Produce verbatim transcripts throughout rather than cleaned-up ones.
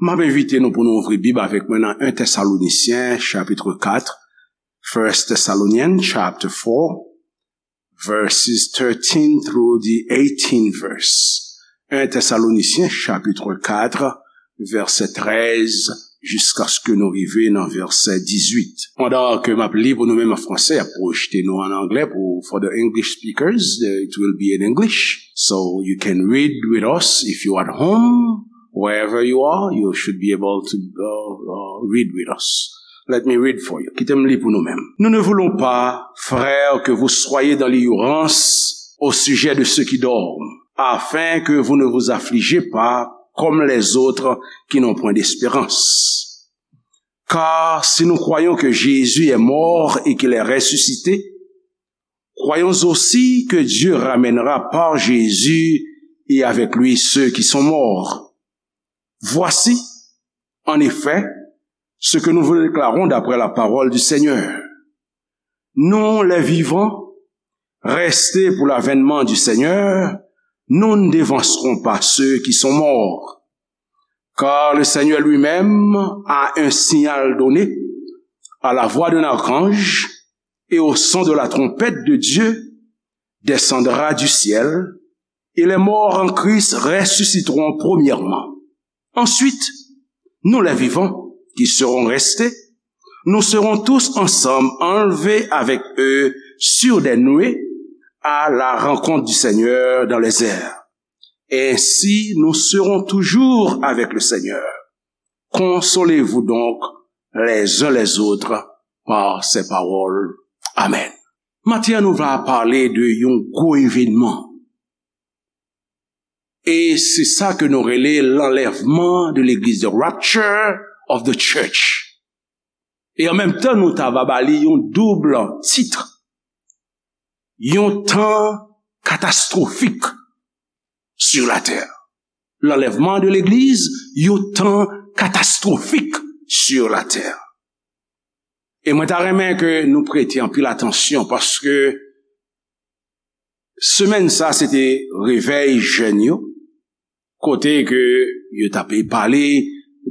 M ap envite nou pou nou ouvri Bib avèk mwen nan en Tèsalonisyen, chapit kat, First Thessalonians chapter four, verses thirteen through the eighteen verse. En Tèsalonisyen, chapit kat, vèsè trèz, jiskaske nou rive nan vèsè dizuit. Pandan ke m ap li pou nou menm an fransè, ap pwojte nou an anglè pou, for the English speakers, uh, it will be in English. So you can read with us if you at home, wherever you are, you should be able to, uh, uh, read with us. Let me read for you. Kite m li pou nou menm. Nous ne voulons pas, frères, que vous soyez dans l'ignorance au sujet de ceux qui dorment, afin que vous ne vous affligez pas comme les autres qui n'ont point d'espérance. Car si nous croyons que Jésus est mort et qu'il est ressuscité, croyons aussi que Dieu ramènera par Jésus et avec lui ceux qui sont morts. Voici, en effet, ce que nous vous déclarons d'après la parole du Seigneur. Nous, les vivants, restés pour l'avènement du Seigneur, nous ne devancerons pas ceux qui sont morts. Car le Seigneur lui-même, à un signal donné, à la voix d'un archange et au son de la trompette de Dieu, descendra du ciel, et les morts en Christ ressusciteront premièrement. Ensuite, nous les vivants, qui serons restés, nous serons tous ensemble enlevés avec eux sur des nuées à la rencontre du Seigneur dans les airs. Ainsi, nous serons toujours avec le Seigneur. Consolez-vous donc les uns les autres par ces paroles. Amen. Maten an, nou va pale de yon gwo evènman. E se sa ke nou rele lanlèvman de legliz, the rapture of the church. E an menm tan, nou ta va ba li yon doub tit. Yon tan katastwofik sur la terre. Lanlèvman de legliz, yon tan katastwofik sur la terre. E mwen ta renmen ke nou prete anpil atansyon paske semèn sa se te revèy jèn yo, kote ke yo t ap pale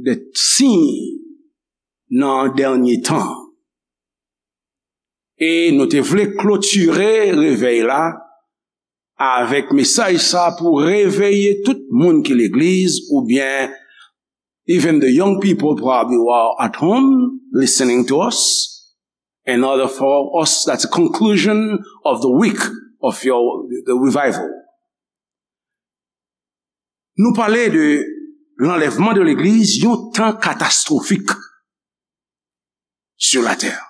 de siy nan dènye tan. E nou te vle klotire revèy la avèk mesaj sa pou reveye tout moun ki legliz, oubyen even the young people probably who are at home listening to us, in order for us, that's the conclusion of the week of your, the revival. Nou pale de lanlèvman de legliz, yon tan katastwofik sur la terre.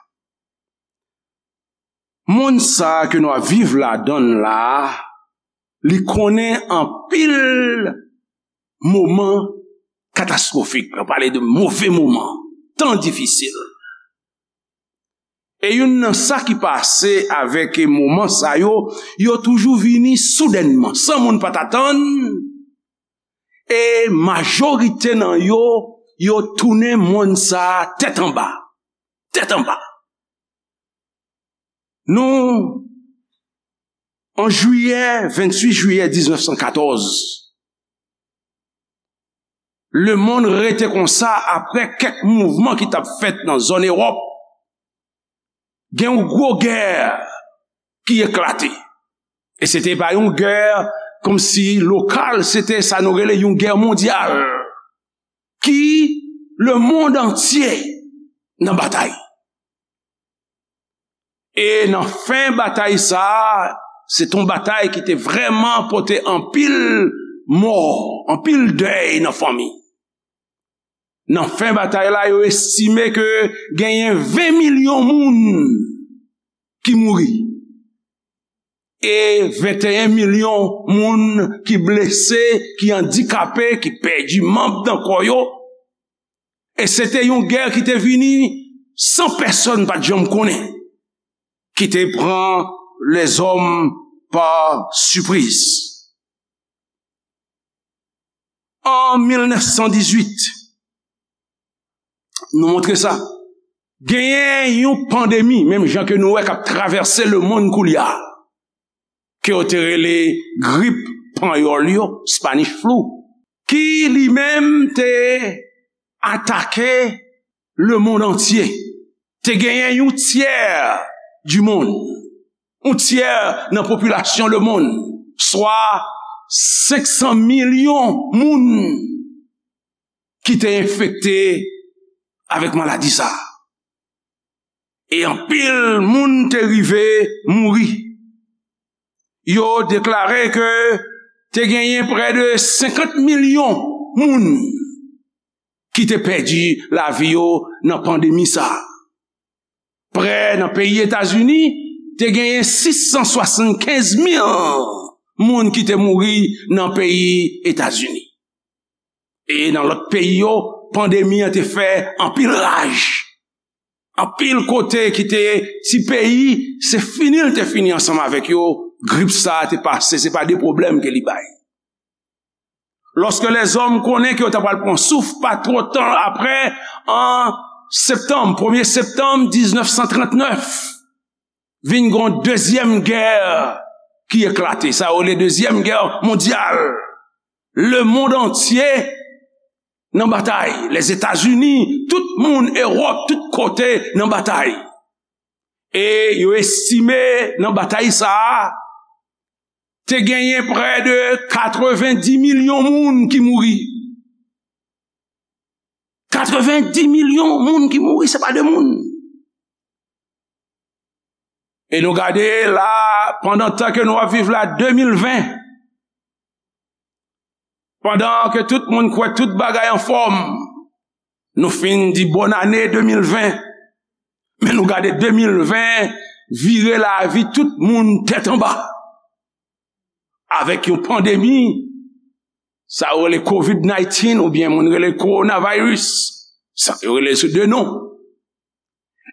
Monn sa ke nou ap viv ladan l la, li konnen anpil moman katastwofik. Nou pale de move moman, tan difisil. E youn nan sa ki pase avèk moman sa yo, yo toujou vini soudènman, san moun pa t atann. E majorite nan yo, yo tounen monn sa a tèt anba. Tèt anba. Nou, an jiyè, venntuit jiyè diznèf san katòz, lemonn rete konsa apre kèk mouvman ki t ap fèt nan zòn Ewòp. Gen yon gwo gè ki eklate. E se te pa yon gè kòmsi lokal, se te sa nou rele yon gè mondyal. Ki lemonn antye nan batay. E nan fen batay sa a, se t on batay ki te vrèman pote anpil mò, anpil dèy nan fanmi. Nan fen batay la, yo estime ke genyen ven milyon moun ki mouri. E venteyen milyon moun ki blese, ki andikape, ki pèdi manm nan kò yo. E se te yon gè ki te vini san pèsonn pa t janm konnen, ki te pran lèzòm pa sipriz. An mil nèf san dizuit, nou montre sa. Genyen yon pandemi, menm jan ke nou wè k ap travèse lemonn koulye a, ke yo te rele grip panyòl yo, Spanish flu, ki li menm te atake lemonn antye. Te genyen yon tyè di monn, yon tyè nan popilasyon lemonn, swa senk san milyon moun ki te enfekte avèk maladi sa a. E anpil moun te rive mouri. Yo deklare ke te genyen prè de senkant milyon moun ki te pèdi lavi yo nan pandemi sa a. Prè nan peyi Etazini, te genyen sis san swasannkenz mil moun ki te mouri nan peyi Etazini. E nan lòt peyi yo, pandemi an te fè anpil raj. Anpil kote ki te ti peyi, se fini l te fini ansanm avèk yo, grip sa a te pase, se pa de pwoblèm ke li bay. Lòske lèzòm konnen ke yo ta pral pran souf, pa twò tan apre, an septanm, premye septanm diznèf san trantnèf, vin gen yon dezyèm gè ki eklate. Sa yo rele dezyèm gè mondyal. Lemonn antye nan batay. Lèzetazini, tout moun Ewòp, tout kote nan batay. E yo estime nan batay sa a, te genyen prè de katrevendi milyon moun ki mouri. Katrevendi milyon moun ki mouri, se pa de moun. E nou gade la, pandan tan ke nou ap viv la, de mil ven, pandan ke tout moun kwè tout bagay anfòm, nou fin di bòn ane de mil ven, men nou gade de mil ven vire lavi tout moun tèt anba. Avèk yon pandemi, sa yo rele covid nineteen oubyen moun rele coronavirus. Sa yo rele sou de non.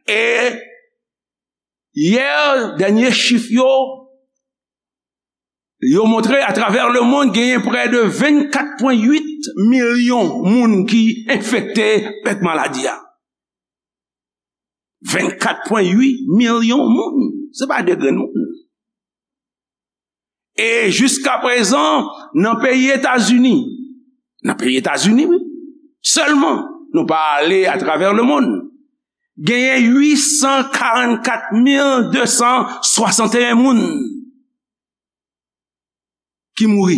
E yè, dènye chif yo, yo montre atravè lemonn genyen prè de vennkat pwen uit milyon moun ki enfekte avèk maladi a. Vennkat pwen uit milyon moun. Se pa de grenn moun. E jiska prezan, nan peyi Etazini, nan peyi Etazini, wi, sèlman, nou pa ale atravè lemonn, genyen uit san karannkat mil de san swasanteyen moun ki mouri.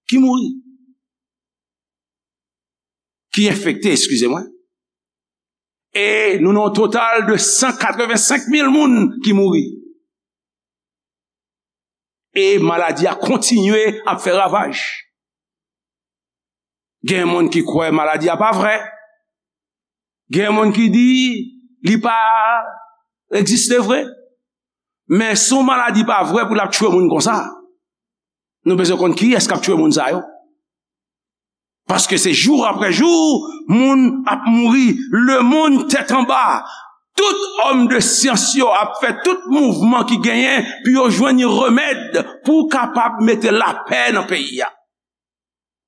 Ki mouri. Ki enfekte, eskize mwen. E nou nan yon total de san katrevensenk mil moun ki mouri. E maladi a kontinye ap fè ravaj. Gen moun ki kwè maladi a pa vrè. Gen moun ki di li pa egziste vre. Men si yon maladi pa vrè pou l ap tchwe moun konsa, nou bezwen konn kiyès k ap tchwe moun sa yo. Paske se jou apre jou, moun ap mouri, lemonn tèt anba. Tout òm de syans yo ap fè tout mouvman ki genyen pou yo jwenn yon remèd pou kapab mete lapè nan peyi a.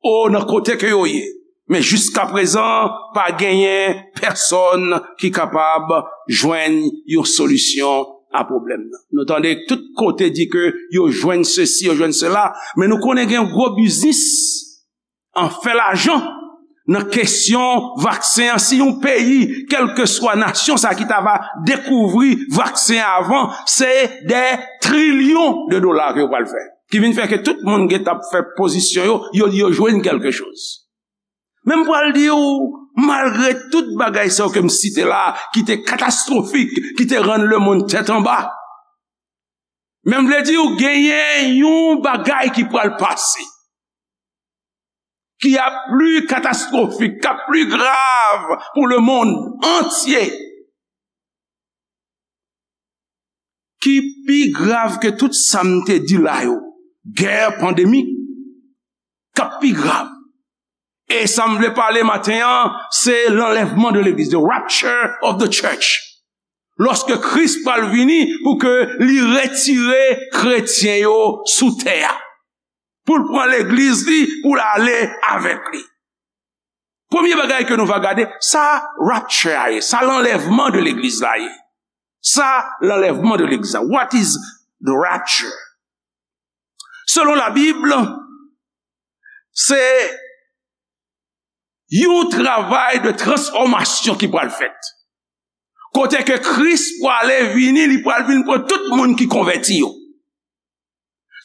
O, nan kote ke yo ye. Men jiska prezan, pa genyen pèsòn ki kapab jwenn yon solisyon a pwoblèm nan. Nou tande tout kote di ke yo jwenn sesi, yo jwenn sela, men nou konnen gen gwo biznis an fè lajan nan kesyon vaksen an. Si yon peyi, kèlkeswa nasyon sa ki ta va dekouvri vaksen an avan, se dè trilyon de dola ke yo pral fè. Ki vin fè ke tout moun gentan ap fè pozisyon yo, yo di yo jwenn kèlke choz. Men m pral di w, malgre tout bagay sa yo ke m site la, ki te katastwofik, ki te rann lemonn tèt anba, men m vle di w genyen yon bagay ki pral pase, ki ap pli katastwofik, k ap pli grav pou lemonn antye, ki pi grav ke tout sa m te di la yo. Gè pandemik k ap pi grav. E sa m vle pale maten an, se lanlèvman de legliz, the rapture of the church. Lòske Kris pral vini pou ke li retire kretyen yo sou tè a. Pou l pran legliz li, pou l ale avèk li. Premye bagay ke nou va gade, sa rapture a ye, sa lanlèvman de legliz la ye. Sa lanlèvman de legliz la. What is the rapture? Selon Labib, se Yon travay de transfòmasyon ki pral fèt. Kote ke Kris prale vini, li pral vin pran tout moun ki konvèti yo.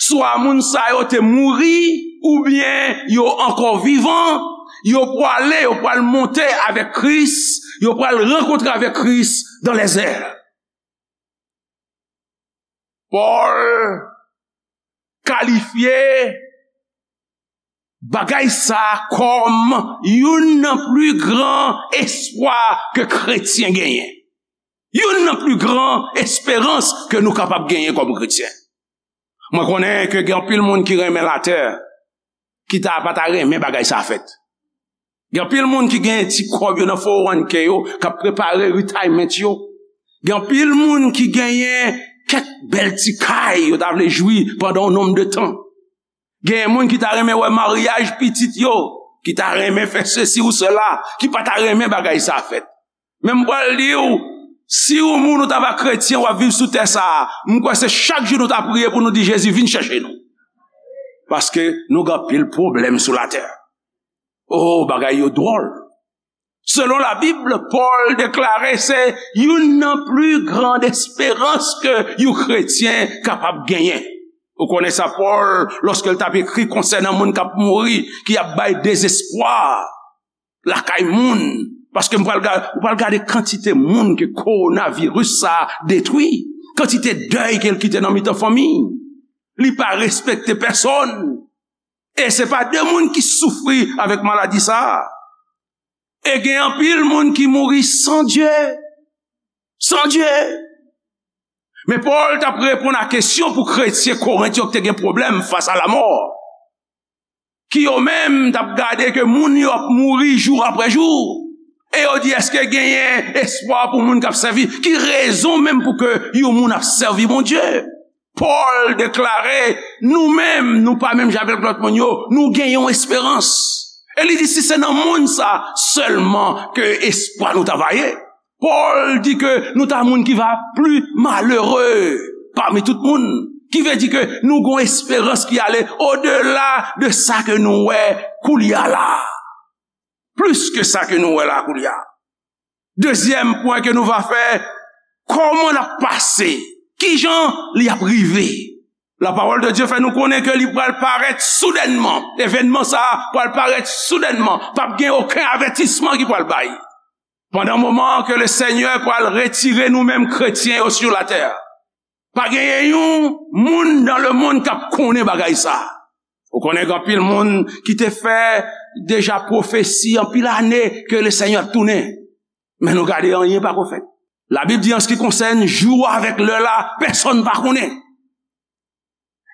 Swa moun sa yo te mouri, oubyen yo ankò vivan, yo prale, yo pral monte avèk Kris, yo pral rankontre avèk Kris dans les airs. Pòl kalifye bagay sa kòm youn nan pli gran espwa ke kretyen genyen. Youn nan pli gran esperans ke nou kapab genyen kòm kretyen. Mwen konnen ke gen anpil moun ki renmen latè, ki ta pa ta renmen bagay sa fèt. Gen anpil moun ki gen ti kòb yo nan four one k yo, k ap prepare retirement yo. Gen anpil moun ki genyen kèk bèl ti kay yo ta vle jwi pandan yon nonm de tan. Gen moun ki ta renmen wè maryaj pitit yo, ki ta renmen fè sesi ou sela, ki pa ta renmen bagay sa fèt. Men m pral di w, si w moun ou ta pa kretyen, w ap viv sou tè sa a, m kwè se chak jou nou ta priye pou nou di, Jezi, vin chèche nou. Paske nou gen anpil pwoblèm sou latè. Oh, bagay yo dwòl. Selon Labib, Pòl deklare se youn nan pli gran esperans ke yon kretyen kapab genyen. Ou konnen sa, Pòl, lòske l t ap ekri konsènan moun k ap mouri, ki ap bay dezespwa lakay moun. Paske m pral ga-, ou pral gade kantite moun ke kowonaviris sa a detwi, kantite dèy ke l kite nan mitan fanmi. Li pa respekte pèsonn. E se pa de moun ki soufri avèk maladi sa a. E gen anpil moun ki mouri san Dye. San Dye. Men Pòl t ap reponn a kesyon pou kretyen Korent yo ki te gen pwoblèm fas a lamò. Ki yo menm t ap gade ke moun yo ap mouri jou apre jou. E yo di, èske genyen espwa pou moun k ap sèvi? Ki rezon menm pou ke yon moun ap sèvi Bondye? Pòl deklare, nou menm, nou pa menm jan avèk lòt moun yo, nou gen yon esperans. E li di, si se nan monn sa sèlman ke espwa nou ta va ye. Pòl di ke nou ta moun ki va pli malere pami tout moun. Ki vle di ke nou gon esperans ki ale odela de sa ke nou wè koulye a la. Plis ke sa ke nou wè la koulye a. Dezyèm pwen ke nou va fè, kòman l ap pase? Kijan li ap rive? La parole de Dieu fè nou konnen ke li pral parèt soudènman. Evènman sa a pral parèt soudènman. P ap gen okenn avètisman ki pral bay. Pandan moman ke le Senyè pral retire nou menm kretyen yo sou latè, pa genyen yon moun dans le monde k ap konnen bagay sa. Ou konnen gen anpil moun ki te fè deja pwofesi anpil ane ke le Senyè ap tounen. Men nou gade, anyen pako fèt. Labib di, an se ki konsène jou avèk lè la, pèsonn pa konnen.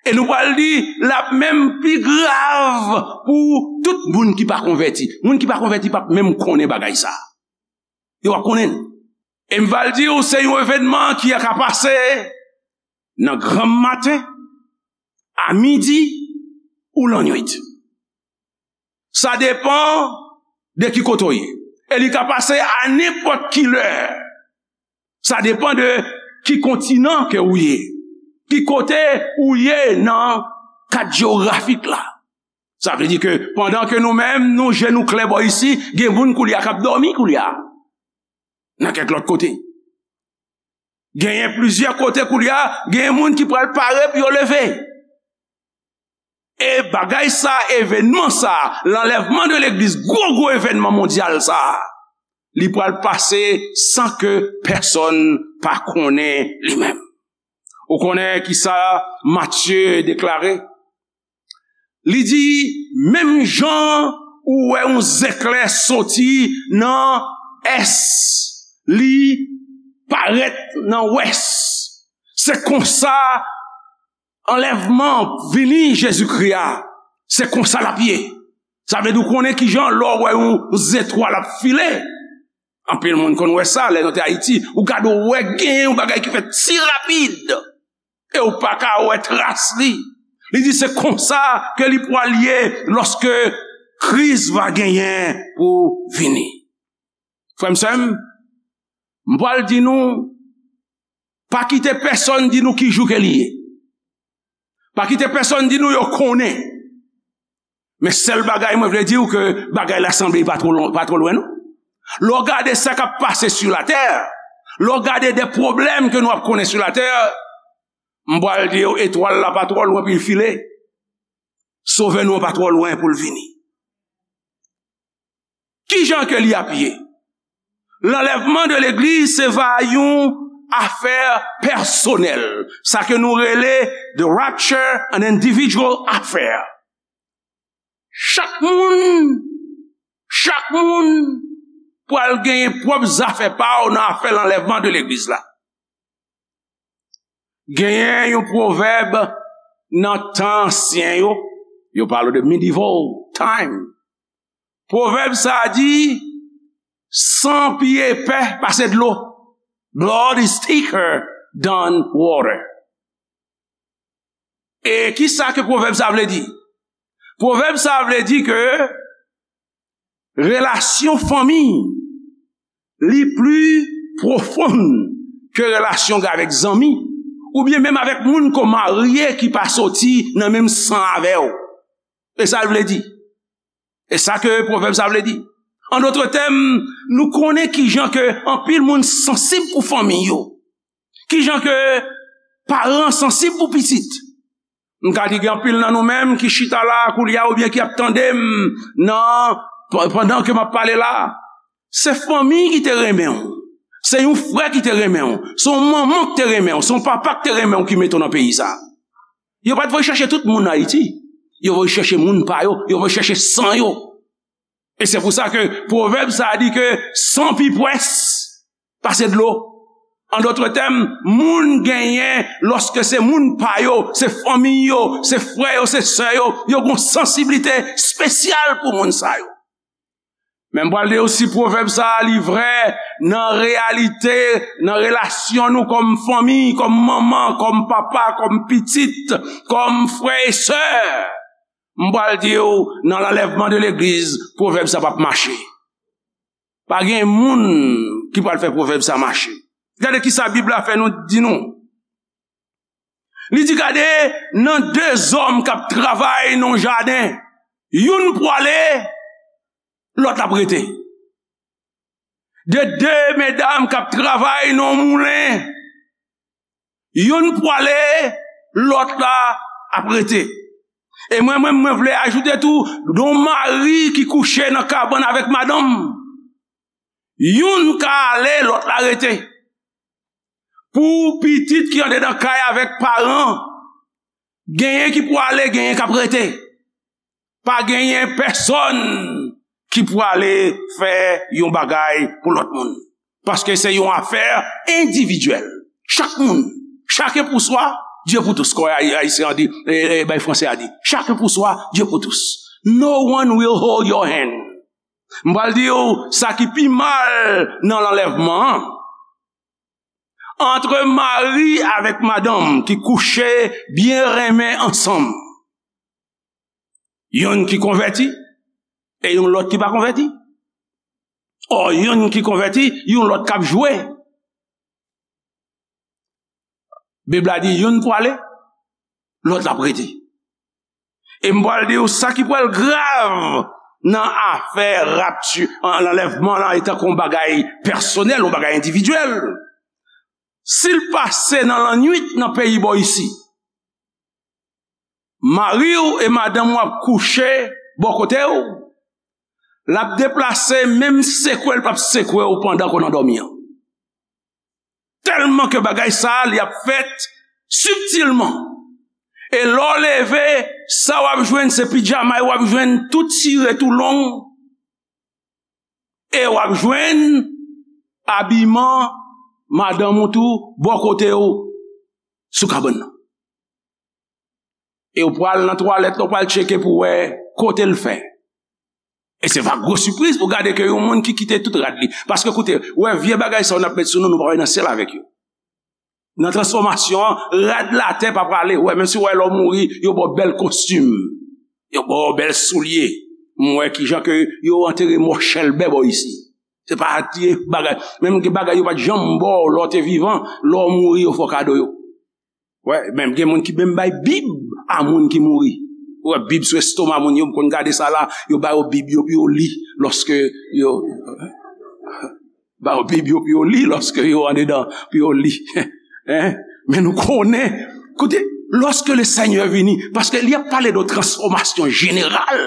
E nou pral di, l ap menm pi grav pou tout moun ki pa konvèti. Moun ki pa konvèti p ap menm konnen bagay sa. Yo p ap konnen l. E m pral di w, se yon evènman ki ka pase nan granm maten, a midi ou lannwit. Sa depann de ki kote w ye. E li ka pase a nenpòt ki lè. Sa depann de ki kontinan ke ou ye. Ki kote ou ye nan kad jewografik la. Sa vle di ke pandan ke nou menm, nou je nou klè bò isi, gen moun koulye a k ap dòmi koulye a. Nan kèk lòt kote. Genyen plizyè kote koulye a, genyen moun ki pral pare pou yo leve. E bagay sa, evènman sa, lanlèvman de legliz, gwo gwo evènman mondyal sa, li pral pase san ke pèsonn pa konnen li menm. Ou konnen ki sa Matye deklare? Li di, menm jan ou wè yon zeklè soti nan ès, li parèt nan wès. Se konsa anlèvman vini Jezikri a, se konsa l ap ye. Sa vle di w konnen kijan lè w wè yon zetwal ap file. Anpil moun konn wè sa lè nou te Ayiti. Ou gade w wè gen yon bagay ki fèt si rapid. E w pa ka wè tras li. Li di se konsa ke li pral ye lòske Kris va genyen pou vini. Frè m, sè m, m pral di nou, pa kite pèsonn di nou ki jou ke li ye. Pa kite pèsonn di nou yo konnen. Men sèl bagay mwen vle di w ke bagay la sanble pa twò lwen, pa twò lwen non. Lè w gade sa k ap pase sou latè, lè w gade de pwoblèm ke nou ap konnen sou latè, m pral di w etwal la pa twò lwen pou l file. Sovè nou an pa twò lwen pou l vini. Kijan ke li ap ye? Lanlèvman de legliz se va yon afè pèsonèl. Sa ke nou rele the rapture, an individual affair. Chak moun, chak moun pral genyen pwòp zafè pa w nan afè lanlèvman de legliz la. Genyen yon pwovèb nan tan ansyen yo, yo pale de medieval time. Pwovèb sa a di, san pi epè pase dlo. Blood is thicker than water. E ki sa ke pwovèb sa vle di? Pwovèb sa vle di ke relasyon fanmi li pli pwofon ke relasyon avèk zanmi, oubyen menm avèk moun ke w marye ki pa soti nan menm san avè w. E sa l vle di. E sa ke pwovèb sa vle di. An dòt tèm, nou konnen kijan ke anpil moun sansib pou fanmi yo. Kijan ke paran sansib pou pitit. M ka di gen anpil nan nou menm ki chita la koulye a oubyen ki ap tande m nan, pandan ke m ap pale la. Se fanmi ki te renmen w. Se yon frè ki te renmen w. Se yon manman ki te renmen w. Se yon papa ki te renmen w ki mete w nan peyi sa. Yo pa t voye chèche tout moun Ayiti. Yo voye chèche moun pa yo. Yo voye chèche san yo. E se pou sa ke pwovèb sa a di ke san pi pwès pase dlo. An dòt tèm, moun genyen, lòske se moun pa yo, se fanmi yo, se frè yo, se sè yo, yo gon sansiblite espesyal pou moun sa yo. Men m pral di w si pwovèb sa a li vrè nan reyalite, nan relasyon nou kòm fanmi, kòm manman, kòm papa, kòm pitit, kòm frè e sè. M pral di w nan lanlèvman de legliz, pwovèb sa p ap mache. Pa gen moun ki pral fè pwovèb sa mache. Gade ki sa Bib la fè nou di nou. Li di, gade, nan de zòm k ap travay nan yon jaden, youn pwale, lòt ap rete. De de medam k ap travay nan yon moulen, youn pwale, lòt la ap rete. E mwen menm, mwen vle ajoute tou, de yon mari ki kouche nan kabann avèk madanm, youn ka ale, lòt la rete. Pou pitit ki andedan kay avèk paran, genyen ki pwale, genyen k ap rete. Pa genyen pèsonn ki pwale fè yon bagay pou lòt moun. Paske se yon afè endividyèl. Chak moun, chacun pour soi, Dieu pour tous. Kòm Ay-, Ayisyen an di, e, e, bay Franse a di, chacun pour soi, Dieu pour tous. No one will hold your hand. M pral di w sa ki pi mal nan lanlèvman an. Antre mari avèk madanm ki kouche byen renmen ansanm. Youn ki konvèti, e yon lòt ki pa konvèti. Ò, youn ki konvèti, yon lòt k ap jwe. Bib la di youn pwale, lòt la ap rete. E m pral di w sa ki pral grav nan afè rapti, an, lanlèvman lan, e tankou yon bagay pèsonèl, yon bagay endividyèl. Si l pase nan lannwit nan peyi bò isi, mari w e madanm w ap kouche bò kote w, l ap deplase, menm sekwe l p ap sekwe w pandan ke w nan dòmi an. Tèlman ke bagay sa a, li ap fèt sibtilman. E lè w leve, sa w ap jwenn se pidjama w ap jwenn tou tire, tou long. E w ap jwenn abiman madanm ou tou bò kote w sou kabann nan. E w pral nan twalèt la, w pral tcheke pou wè kote l fè. E se va gwo sipriz pou gade ke yon moun ki kite tout rad li. Paske koute, w wè vye bagay sa yo n ap met sou nou, nou pa wè nan syèl avèk yo. Nan transfòmasyon an, rad latè pa prale. W wè, menm si w wè lè w mouri, yo ba w bèl kostim. Yo ba w bèl soulye. M wè kijan ke yo antere mò chèlbè bò isi. Se pa ti bagay. Menm gen bagay yo pa t janm ba w lè w te vivan, lè w mouri, yo fè w kado yo. Wè, menm gen moun ki menm bay bib a moun ki mouri. Ou wè Bib sou estoma moun yo, m konn gade sa la, yo ba yo Bib yo pou yo li lòske yo ba yo Bib yo pou yo li lòske yo andedan, pou yo li. Hein? Men nou konnen, koute, lorsque le Seigneur vini, paske li ap pale de transfòmasyon jeneral.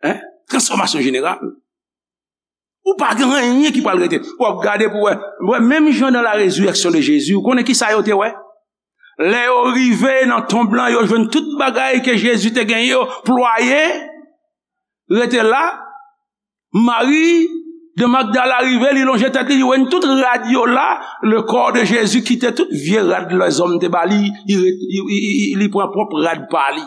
Hein? Transfòmasyon jeneral. Ou pa gen anyen ki pral rete. W ap gade pou wè. Wè, menm jan dans la résurrection de Jésus, ou konnen ki sa yo te wè? Lè yo rive nan tonb lan, yo jwenn tout bagay ke Jezi te genyen yo plwaye, rete la. Mari de Magdala rive, li lonje tèt li, li wè tout rad yo la, le corps de Jésus kite tout vye rad lèzòm te ba li, li, li, li, li, li pran pwòp rad pa li.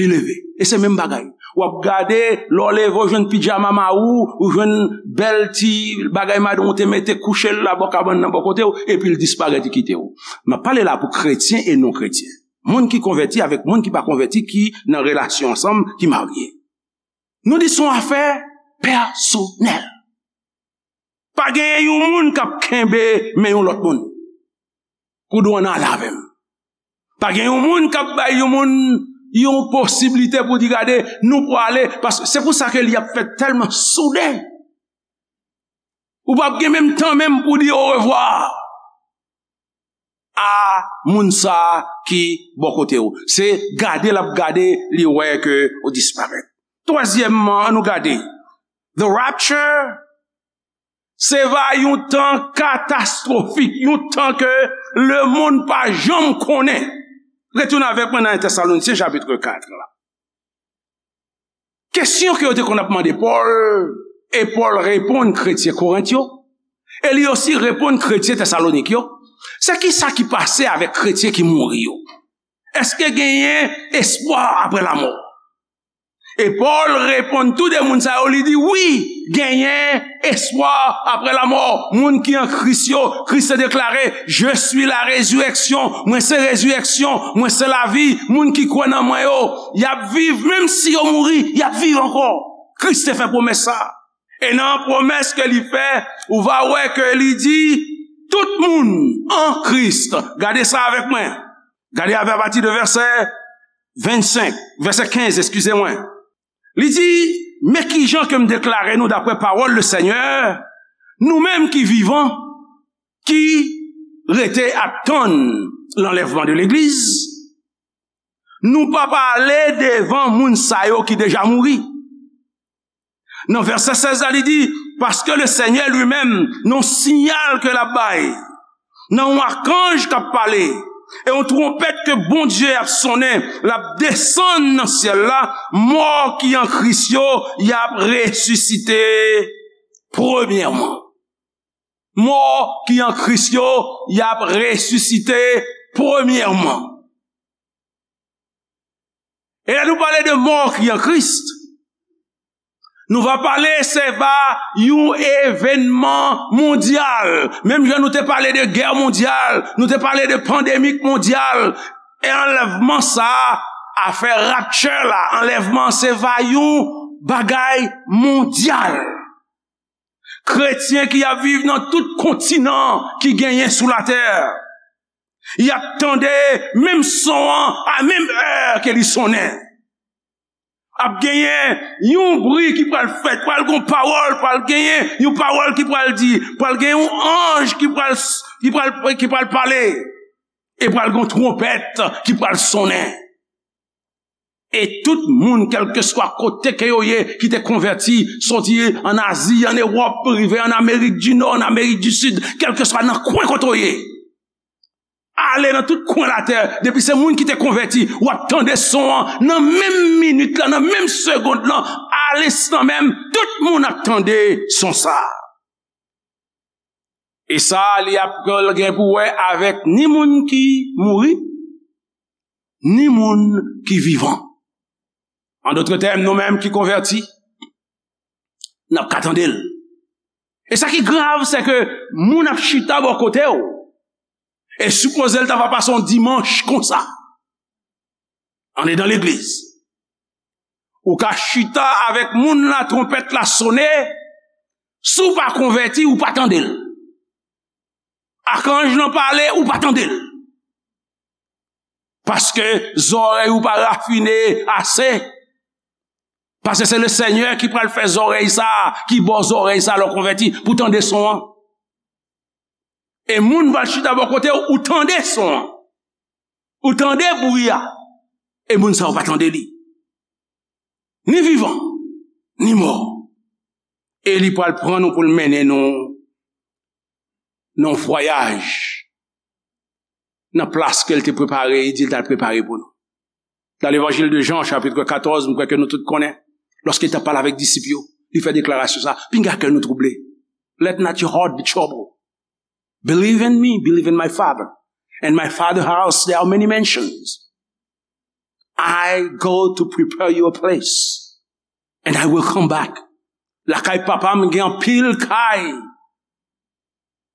Li leve. E se menm bagay. W ap gade, lè w leve, w jwenn pijama mari w, ou jwenn bèl ti bagay madanm ou te mete kouche l la bò kabann nan bò kote w, epi l disparèt, li kite w. M ap pale la pou kretyen e non kretyen. Moun ki konvèti avèk moun ki pa konvèti, ki nan relasyon ansanm, ki marye. Nou di se yon afè pèsonèl. Pa genyen yon moun k ap kenbe men yon lòt moun pou di w ann ale avè m. Pa gen yon moun k ap bay yon moun yon posiblite pou di, gade, nou prale, paske se pou sa ke li ap fèt tèlman souden. Ou p ap gen menm tan menm pou di orevwa a moun sa a ki bò kote w. Se gade l ap gade, li wè ke ou disparèt. Twazyèmman, ann nou gade. The rapture, se va yon tan katastwofik, yon tan ke lemonn pa janm konnen. Retounen avèk mwen nan en Tèsalonisyen chapit kat la. Kesyon ke yo te konn ap mande Pòl, e Pòl reponn kretyen Korent yo, e li osi reponn kretyen Tèsalonik yo, se ki sa ki pase avèk kretyen ki mouri yo? Èske genyen espwa apre lamò? E Pòl reponn tou de moun sa yo, li di, wi, genyen espwa apre lamò. Moun ki an Kris yo, Kris te deklare, je suis la résurrection, mwen se rezirèksyon, mwen se lavi. Moun ki kwè nan mwen yo, y ap viv, menm si yo mouri, y ap viv ankò. Kris te fè pwomès sa. E nan pwomès ke li fè, ou va wè ke li di, tout moun an Kris. Gade sa avèk mwen. Gade avè apati de vèsè vennsenk, vèsè kenz, eskize mwen. Li di, men kijan ke m deklare nou daprè pawòl le Senyè, nou menm ki vivan, ki rete ap tann lanlèvman de legliz, nou pa pale devan moun sa yo ki deja mouri. Nan vèsè sèz la, li di, paske le Senyè li menm, nan yon siyal ke l ap bay, nan yon akanj k ap pale, e yon twonpèt ke Bondye ap sonnen, l ap desann nan syèl la, mò ki an Kris yo, y ap resisite premyèman. Mò ki an Kris yo, y ap resisite premyèman. E lè nou pale de mò ki an Kris, nou va pale se va yon evènman mondyal. Menm jan nou te pale de gè mondyal, nou te pale de pandemik mondyal, e anlèvman sa a, afè rapture la, anlèvman se va yon bagay mondyal. Kretyen ki ap viv nan tout kontinan ki genyen sou latè, y ap tande menm son an a menm è ke li sonnen. Ap genyen yon bri ki pral fèt, pral gon pawòl, pral genyen yon pawòl ki pral di, pral gen yon anj ki pral, ki pral, ki pral pale, e pral gon twonpèt ki pral sonnen. E tout moun, kèlkeswa kote ke yo ye, ki te konvèti, soti an Azi, an Ewòp, rive an Amerik di Nò, an Amerik di Sid, kèlkeswa nan kwen kote w ye, ale nan tout kwen latè, depi se moun ki te konvèti, w ap tande son an, nan menm minit la, nan menm segond lan, alenstan menm, tout moun ap tande son sa a. E sa, li ap gen pou wè avèk ni moun ki mouri, ni moun ki vivan. An dòt tèm, nou menm ki konvèti, n ap ka tande l. E sa ki grav, se ke moun ap chita bò kote w, e sipoze l ta va pase yon dimanch konsa. Andedan legliz. Ou ka chita avèk moun la, twonpèt la sone, si w pa konvèti, ou pa tande l. Akanj lan pale, ou pa tande l. Paske zòrèy ou pa rafine ase. Paske se Lesenyè ki pral fè zòrèy sa, ki ba w zòrèy sa lè w konvèti, pou tande son an. E moun pral chita bò kote w, ou tande son an. Ou tande bri a. E moun sa yo pa tande li. Ni vivan, ni mò. E li pral pran nou pou l mennen nou nan yon vwayaj nan plas ke l te prepare, li di l t al prepare pou nou. Dans l'évangile de Jean, chapitre quatorze, m kwè ke nou tout konnen, lòske li t ap pale avèk disip yo, li fè deklarasyon sa, "Pinga kè nou twouble. Let not your heart be troubled. Believe in me, believe in my Father. In my Father house there are many mansions. I go to prepare you a place. And I will come back." Lakay papa m gen anpil kay.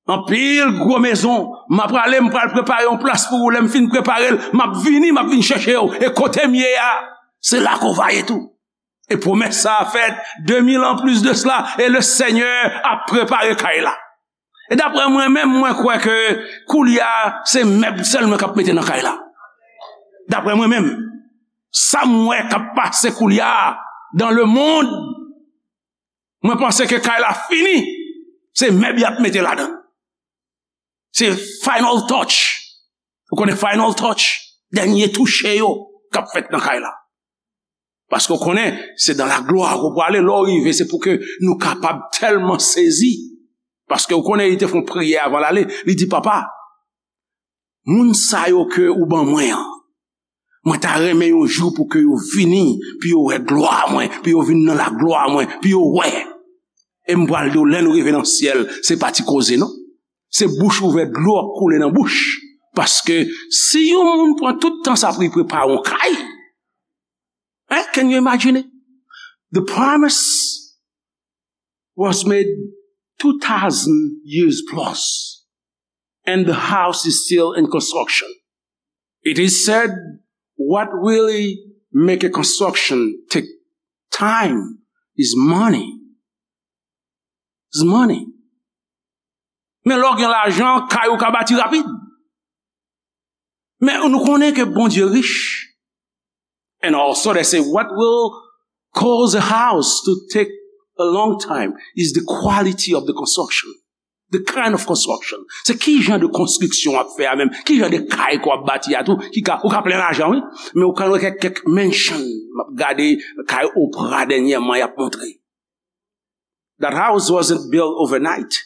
Anpil gwo mezon. M ap prale, m pral prepare yon plas pou ou. Lè m fin prepare l, m ap vini, m ap vin chèche w. E kote m ye a, se la ke w va ye tou. E pwomès sa a fèt de mil an plis de sela, e Lesenyè ap prepare kay la. E daprè mwen menm, mwen kwè ke koulye a, se mèb sèlman k ap mete nan kay la. Daprè mwen menm, sa m wè k ap pase koulye a dans le monde, mwen panse ke kay la fini, se mèb y ap mete ladan. Se final touch. Ou konnen final touch? Dènye touche yo k ap fèt nan kay la. Paske w konnen, se dans la gloire ke w prale, lè w rive, se pou ke nou kapab tèlman sezi. Paske w konnen, li te fè yon priyè avan l ale, li di, "Papa, moun sa yo ke ou ban mwen an, mwen ta renmen yon jou pou ke yo vini, pou yo wè glwa mwen, pou yo vin nan la glwa mwen, pou yo wè." E m pral di w, lè nou rive nan syèl, se pa ti koze, non. Se bouch ouvè, dlo ap koule nan bouch. Paske si yon moun pran tout tan sa pou li prepare yon kay, hein, can you imagine it? The promise was made two thousand years plus, and the house is still in construction. It is said, what really make a construction take time is money. Is money. Men lè w gen lajan, kay ou ka bati rapid. Men nou konnen ke Bondye rich. And also they say what will cause a house to take a long time is the quality of the construction. The kind of construction. Se ki jan de konstriksyon w ap fè a menm? Ki jan de kay ke w ap bati a tou? Ki ka, ou ka plen lajan, wi. Men ou ka wè kèk, kèk mansion. M ap gade kay Oprah dènyèman, y ap montre. That house wasn't built overnight.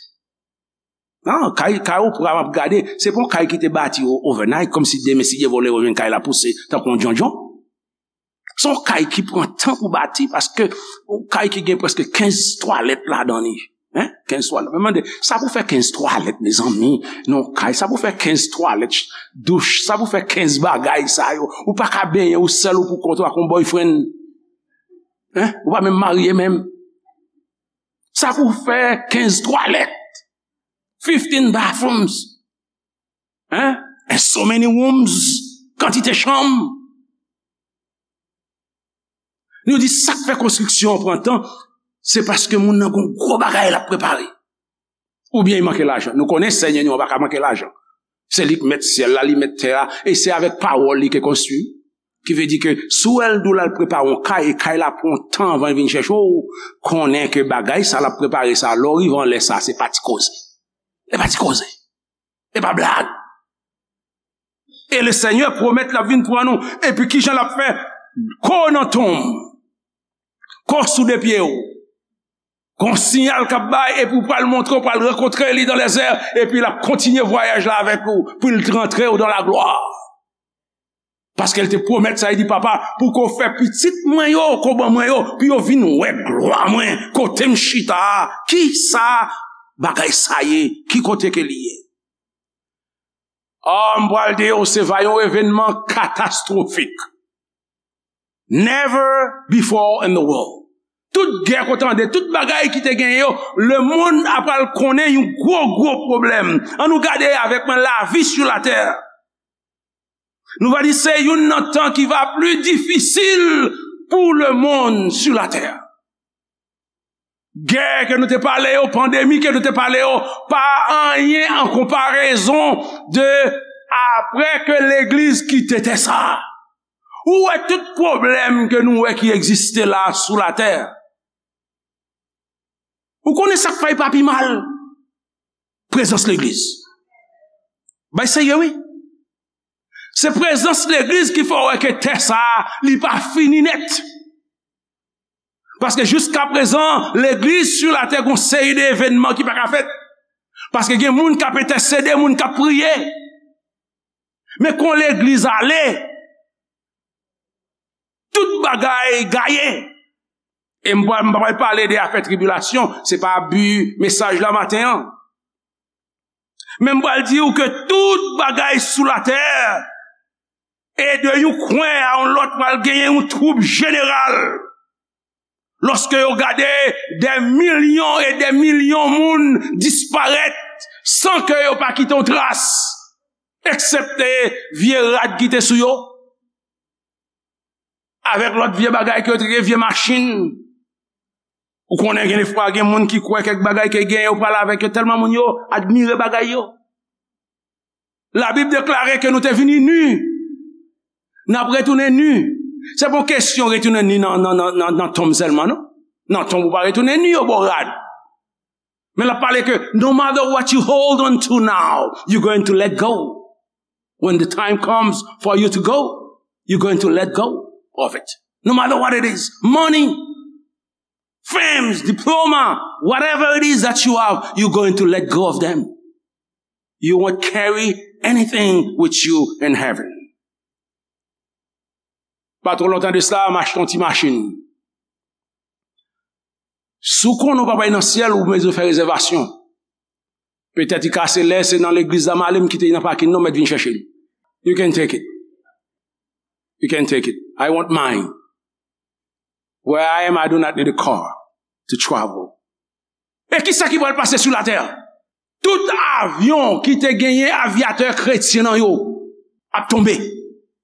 Non, kay, kay Oprah m ap gade, se pa yon kay ki te bati o-, overnight, kòmsi demen si Dye vle ou jwenn kay la pouse tankou yon djondjon. Se yon kay ki pran tan pou bati, paske yon kay ki gen prèske kenz twalèt ladan li. Hein? Kenz twalèt. Mwen mande, sa pou fè kenz twalèt, mezanmi? Non, kay, sa pou fè kenz twalèt, douch, sa pou fè kenz bagay sa yo? Ou pa ka benyen ou sèl ou pou kont ou ak yon boyfriend. Hein? Ou pa menm marye menm. Sa pou fè kenz twalèt, fifteen bathrooms, hein? And so many rooms, kantite chanm. Nou di sa k fè konstriksyon an pran tan, se paske moun nan gon gwo bagay l ap prepare. Oubyen li manke lajan. Nou konnen Senyè nou an pa ka manke lajan. Se li k mèt syèl la, li mèt tè a, e se avèk pawòl li ke konstwi. Ki vle di ke si w wè l di w l al prepare yon kay, e kay la pran yon tan avan l vin chèche w, konnen ke bagay sa l ap prepare sa, lè w rive anlè sa, se pa ti koze. E pa ti koze. E pa blag. E Lesenyè pwomèt l ap vin pran nou. Epi kijan l ap fè? Ko nan tonm. Ko sou de pye w. Gon siyal k ap bay, epi w pral montre, w pral rankontre li dans les airs, epi l ap kontinye vwayaj la avèk ou, pou l rantre w dans la gloire. Paske l te pwomèt sa, li di, "Papa, pou ke w fè pitit mwen yo, ke w ban mwen yo, pou yo vin wè glwa mwen, kote m chita a, ki sa bagay sa ye, ki kote ke li ye?" Ah, m pral di w, se va yon evènman katastwofik. Never before in the world. Tout gè ke w tande, tout bagay ki te genyen yo, lemonn ap pral konnen yon gwo, gwo pwoblèm. Ann nou gade avèk mwen, lavi sou latè. Nou va di se youn nan tan ki va pli difisil pou lemonn sou latè. Gè ke nou te pale yo, pandemi ke nou te pale yo, pa anyen an konparezon de Apre ke legliz kite tè sa a, ou wè tout pwoblèm ke nou wè ki egziste la sou latè. Ou konnen sa k fè l pa pi mal? Prezans legliz. Bay serye, wi. Se prezans legliz ki fè w wè ke tè sa a, li pa fini nèt. Paske jiska prezan, legliz sou latè gon seri de evènman ki pa ka fèt. Paske gen moun k ap entèsede, moun k ap priye. Men kon legliz ale, tout bagay gaye. E m pa, m pa pral pale de afè tribilasyon, se pa bi mesaj la maten an. Men m pral di w ke tout bagay sou latè, e de yon kwen a yon lòt, pral genyen yon twoub jeneral. Lòske yo gade de milyon e de milyon moun disparèt san ke yo pa kite yon tras, eksepte vye rad ki te sou yo, avèk lòt vye bagay ke yo te gen, vye machin. Ou konnen, gen defwa gen moun ki kwè kèk bagay ke gen yo pral avèk yo, tèlman moun yo admire bagay yo. Labib deklare ke nou te vini ni, n ap retounen ni. Se pa yon kesyon retounen ni nan, nan, nan, nan, nan tonm sèlman, non. Nan tonm ou pa retounen ni, yo ba w rad. Men l ap pale ke no matter what you hold on to now, you're going to let go. When the time comes for you to go, you're going to let go of it. No matter what it is, money, fames, diploma, whatever it is that you have, you're going to let go of them. You won't carry anything with you in heaven. Pa twò lontan de sa, m achte yon ti machin. Si w konnen w p ap al nan syèl, ou bezwen fè rezèvasyon. Petèt li ka se lè se nan legliz la m ale, m kite li nan pakin nan, m mèt vin chèche l. You can take it. You can take it. I want mine. Where I am, I do not need a car to travel. E kisa ki pral pase sou latè? Tout avyon ki te genyen avyatè kretyen nan yo ap tonbe.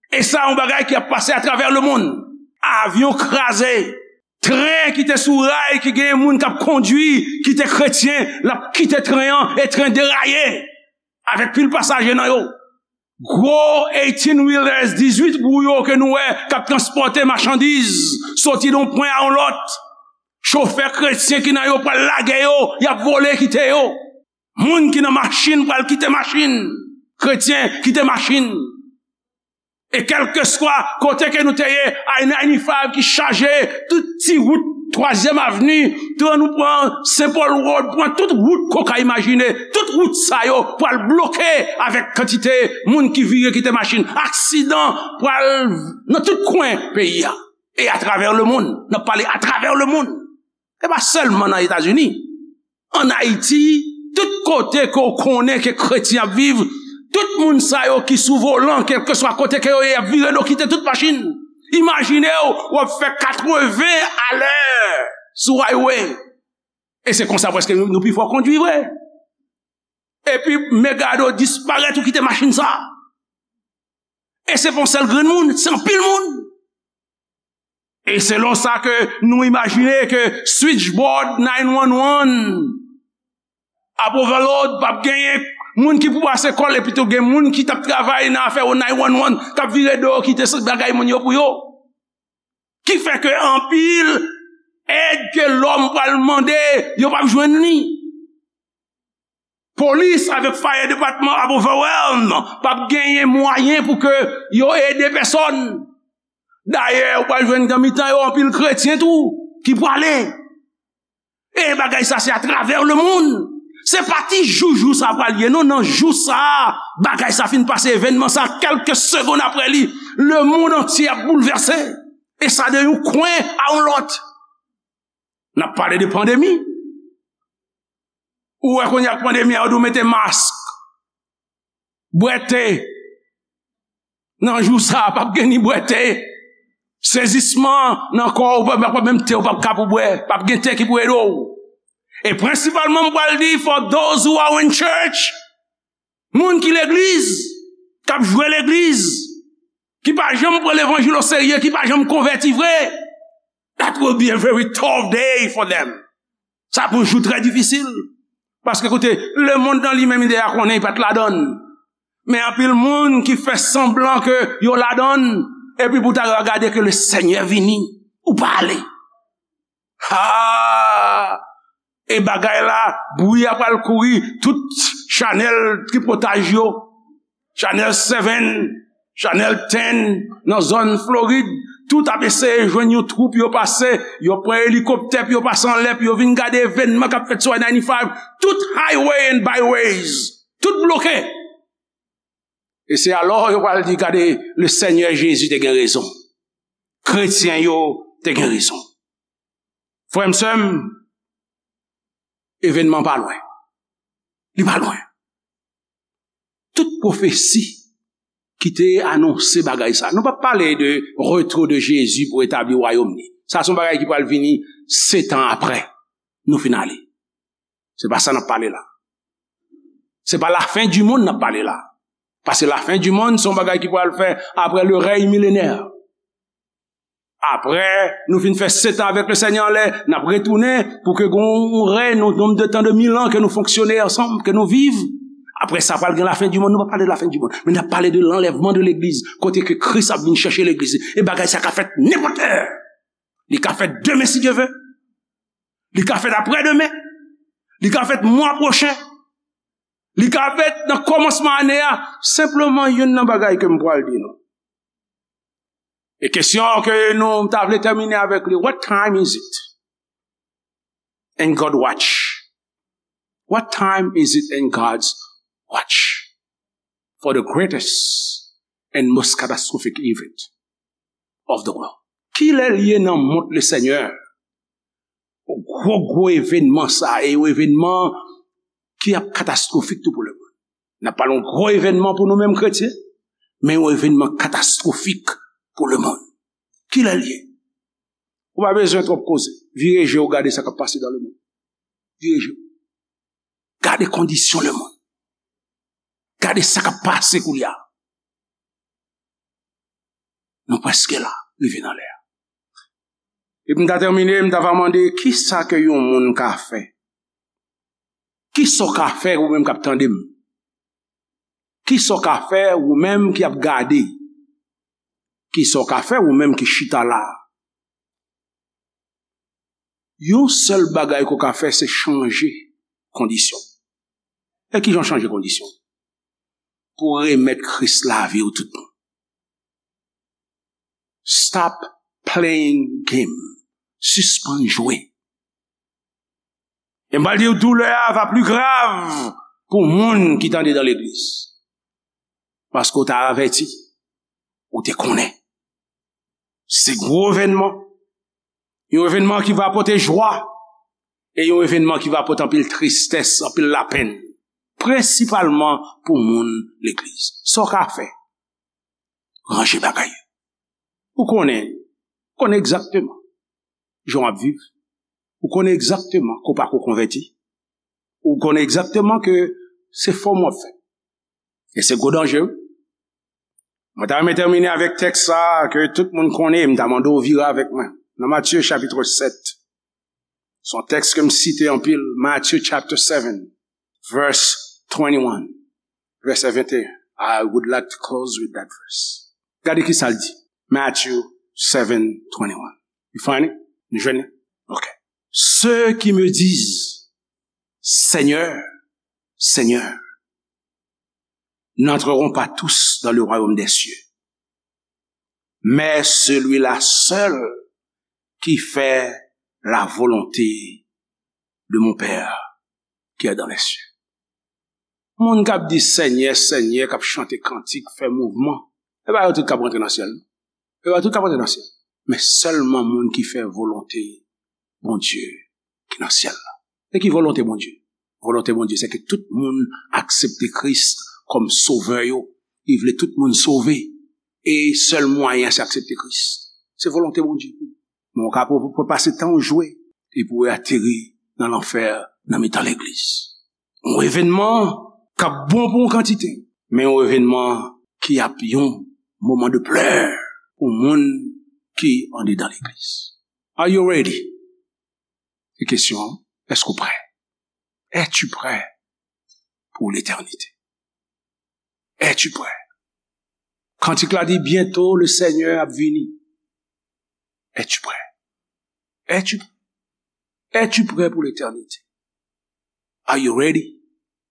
E sa yon bagay ki ap pase atravè lemonn. Avyon kraze, tren ki te sou ray, ki genyen moun k ap kondwi, ki te kretyen, l ap kite tren an e tren deraye avèk pil pasaje nan yo. Gwo eighteen wheelers, dizuit wou yo ke nou wè k ap transpòte machandiz soti de yon pwen a yon lòt. Chofè kretyen ki nan yo pral lage yo, y ap vole kite yo. Moun ki nan machin pral kite machin. Kretyen kite machin. E kèlkeswa kote ke nou te ye, I ninety-five ki chaje, tout ti wout Twazyèm Avni, tout nou pran Saint Paul Road, pran tout wout ke w ka imajine, tout wout sa yo pral bloke avèk kantite moun ki vire kite machin. Aksidan pral nan tout kwen peyi a. E atravè lemonn, n ap pale atravè lemonn. E pa sèlman nan Etazini. Ann Ayiti, tout kote ke w konnen ke kretyen ap viv, tout moun sa yo ki sou volan, kèlkeswa kote ke yo ye, y ap vire do kite tout machin. Imajine w, w ap fè katreven alè sou highway. E se konsa prèske nou, nou pi fò kondwi vre. Epi men gade w disparèt, ou kite machin sa. E se pa yon sèl grenn moun, se anpil moun. E selon sa ke nou imajine ke switchboard nine one one ap overload, p ap genyen moun ki pou pase kò l, epi tou gen moun ki t ap travay nan afè nine one one k ap vire do yo kite bagay moun yo pou yo. Ki fè ke anpil èd ke lòm pral mande, yo p ap jwenn li. Polis avèk fire department ap overwhelm, p ap genyen mwayen pou ke yo ede pèsòn. Dayè, ou pral jwenn nan mitan yo anpil kretyen tou ki prale. E bagay sa se atravè lemonn. Se pa ti jou jou sa pral ye, non, nan jou sa, bagay sa fin pase, evènman sa, kèlke segonn apre li, lemonn antye ap boulvèse. E sa de yon kwen a yon lòt. N ap pale de pandemi. Ou wè kounye a ak pandemi a, yo di w mete mask, bwè te. Nan jou sa a, p ap gen ni bwè te. Sezisman nan kò w, p ap, p ap menm te, w p ap ka pou bwè. P ap gen te ki pou ede w. E prensipalman, m pral di, for those who are in church, moun ki legliz, k ap jwe legliz, ki pa janm pran levanjil oserye, ki pa janm konvèti vre, that will be a very tough day for them. Sa pou yon jou trè difisil. Paske koute, lemonn nan li menm li deja konnen li pa t ladan l. Men anpil moun ki fè sanblan ke yo ladann, epi pou ta yo gade ke le Senyè vini, ou pa ale. Ha! E bagay la, bri a pral kouri, tout chanèl tripotaj yo, Chanèl seven, Chanèl ten, nan zòn Florid, tout ap eseye jwenn yon twoup, yo pase, yo pran elikoptè, pou yo pase anlè, pou yo vin gade evènman k ap fèt sou I ninety-five, tout highway and byways, tout bloke. E se alò yo pral di, gade, le Senyè Jezi te gen rezon. Kretyen yo te gen rezon. Frè m, sè m, evènman pa lwen. Li pa lwen. Tout pwofesi ki te anonse bagay sa. Nou p ap pale de retour de Jezi pou etabli wayòm li. Sa se yon bagay ki pral vini setan apre nou fin ale. Se pa sa n ap pale la. Se pa lafen di monn n ap pale la. Paske lafen di monn se yon bagay ki pral fè apre le rèy milenè. Apre nou fin fè setan avèk le Senyè anlè, n ap retounen pou ke gen yon rèy, yon nonb de tan de mil an ke nou fonksyone ansanm, ke nou viv. Apre sa, pral gen lafen di monn. Nou pa pale de lafen di monn, men n ap pale de lanlèvman de legliz, kote ke Kris ap vin chèche legliz li. E bagay sa ka fèt nenpòt lè. Li ka fèt demen, si Dye vle. Li ka fèt apre demen. Li ka fèt mwa pwochen. Li ka fèt nan kòmansman ane a. Senpleman, youn nan bagay ke m pral di nou. E kesyon ke nou ta vle tèmine avèk li, what time is it in God watch? What time is it in God's watch for the greatest and most catastrophic event of the world? Ki lè l ye nan mond le Senyè? Gwo, gwo evènman sa, e yon evènman ki ap katastwofik tou pou lemonn. N ap pale yon gwo evènman pou nou menm kretyen, men yon evènman katastwofik pou lemonn. Ki lè l ye? Ou pa bezwen twòp koze. Vire je w, gade sa k ap pase dan lemonn. Vire je w. Gade kondisyon lemonn. Gade sa k ap pase koulye a. Nou prèske la, rive nan lè a. Epi m ta tèmine, m ta va mande, kisa ke yon moun ka fè? Kisa w ka fè ou menm k ap tande m? Kisa w ka fè ou menm ki ap gade? Kisa w ka fè ou menm ki chita la? Yon sèl bagay ke w ka fè, se chanje kondisyon. E kijan w chanje kondisyon? Pou w remèt Kris lavi w tout bon. Stop playing game. Sispann jwe. E m pral di w, doulè a va pli grav pou moun ki t andedan legliz. Paske w te avèti, ou te konnen. Se gwo evènman. Yon evènman ki va pote jwa. E yon evènman ki va pote anpil tristès, anpil lapenn. Prensipalman pou moun legliz. Sa w ka fè? Ranje bagay yo. Ou konnen, konnen egzakteman jan w ap viv. Ou konnen egzakteman ke w pako konvèti. Ou konnen egzakteman ke se fòm w ap fè. E se gwo danje, wi. Mwen ta renmen tèmine avèk tèks sa a ke tout moun konnen, m ta mande w vire avèk mwen. Nan Matye chapit sèt. Se yon tèks ke m site anpil, Matthew chapter seven, verse twenty-one, vèsè venteyen. I would like to close with that verse. Gade ki sa l di. Matthew seven twenty-one. You find it? Nou jwenn li? Ok. Ceux qui me disent, Seigneur, Seigneur, n'entreront pas tous dans le royaume des cieux, mais celui-là seul qui fait la volonté de mon Père qui est dans les cieux. Moun k ap di Senyè, Senyè, k ap chante kantik, fè mouvman, e pa yo tout k ap rantre nan syèl. E pa yo tout k ap rantre nan syèl. Men sèlman moun ki fè volonte Bondye ki nan syèl la. E ki volonte Bondye? Volonte Bondye, se ke tout moun aksepte Kris kòm sovè yo. Li vle tout moun sove. E sèl mwayen an, se aksepte Kris. Se volonte Bondye. Men w ka pou, pou pase tan w jwe, epi w ateri nan lanfè nan mitan legliz. Yon evènman k ap bon pou yon kantite, men yon evènman ki ap yon moman de plè pou moun ki andedan legliz. Are you ready? Se kesyon an, èske w prè? Es-tu prêt pour l'éternité? Es-tu prêt? Kantik la di, bientôt le Seigneur ap vini. Es-tu prêt? Es-tu, es-tu prêt pour l'éternité? Are you ready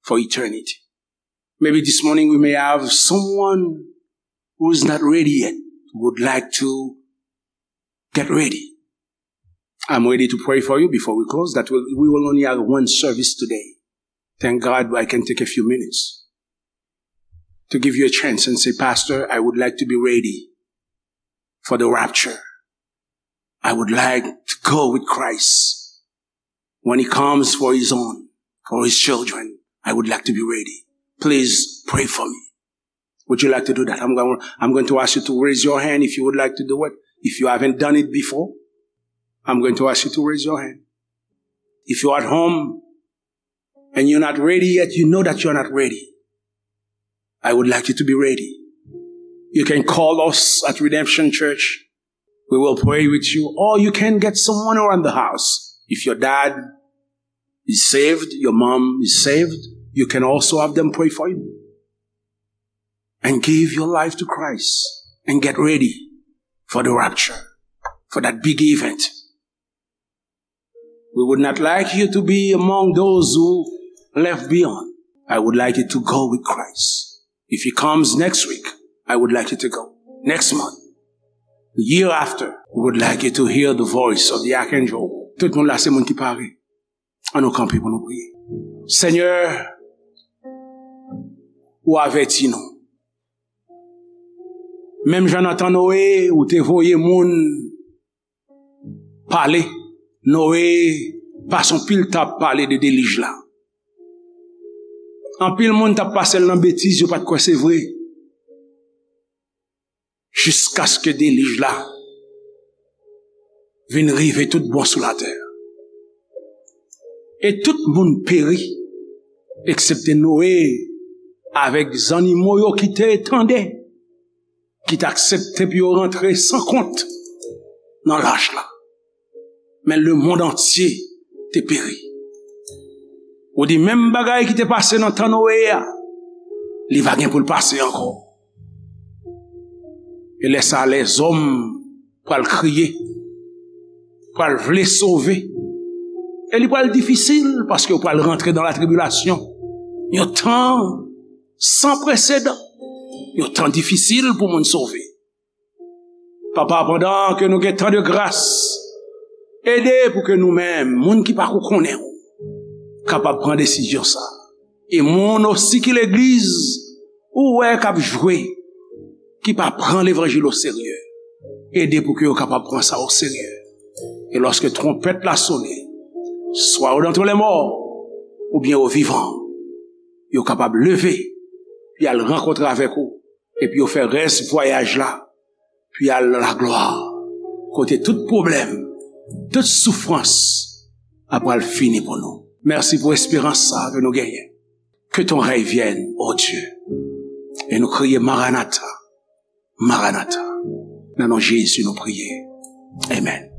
for eternity? Maybe this morning we may have someone who's not ready yet, would like to get ready. I'm ready to pray for you before we close. That will, we will only have one service today. Thank God I can take a few minutes to give you a chance and say, Pastor, I would like to be ready for the rapture. I would like to go with Christ when he comes for his own, for his children. I would like to be ready. Please pray for me. Would you like to do that? I'm going, I'm going to ask you to raise your hand if you would like to do it. If you haven't done it before, I'm going to ask you to raise your hand. If you're at home and you're not ready yet, you know that you're not ready. I would like you to be ready. You can call us at Redemption Church. We will pray with you. Or you can get someone around the house. If your dad is saved, your mom is saved, you can also have them pray for you. And give your life to Christ and get ready for the rapture, for that big event. We would not like you to be among those who left beyond. I would like you to go with Christ. If he comes next week, I would like you to go. Next month, the year after, we would like you to hear the voice of the archangel. Tout moun la se moun ki pare. Ann nou kanpe pou nou priye. Senyè, ou avèti nou. Menm jan nan tan Noye, ou te voye moun pale. Noye pase yon pil tan ap pale de delij la. Anpil moun t ap pase l nan betiz, yo pa t kwè se vre. Jiskaske delij la vin rive tout bon sou latè. E tout moun peri, eksepte Noye avèk zannimo yo ki te tande, ki t aksepte pou yo rantre san kont nan lach la. Men lemonn antye te peri. Ou di menm bagay ki te pase nan tan Noye a, li va gen pou l pase ankò. E lè sa a, lèzòm pral kriye, pral vle sove. E li pral difisil paske yo pral rantre nan latribilasyon. Yon tan san presedan. Yon tan difisil pou moun sove. Papa, pandan ke nou gen tan de gras, ede pou ke nou menm, moun ki pako konnen w, kapab pran desizyon sa. E moun osi ki legliz, ou wè k ap jwe, ki pa pran levanjil oserye, ede pou ke yo kapab pran sa oserye. E lòske twonpèt la sone, swa ou dan twou lèmò, oubyen ou vivan, yo kapab leve, pou y al rankontre avèk ou, epi yo fè rès vwayaj la, pou y al nan laglwa, kote tout pwoblèm, tout soufrans ap pral fini pou nou. Mèsi pou esperans sa ke nou genyen. Que ton règne vienne, ô Dieu. E nou kriye, Maranatha, Maranatha. Nan non Jezi nou priye. Amèn.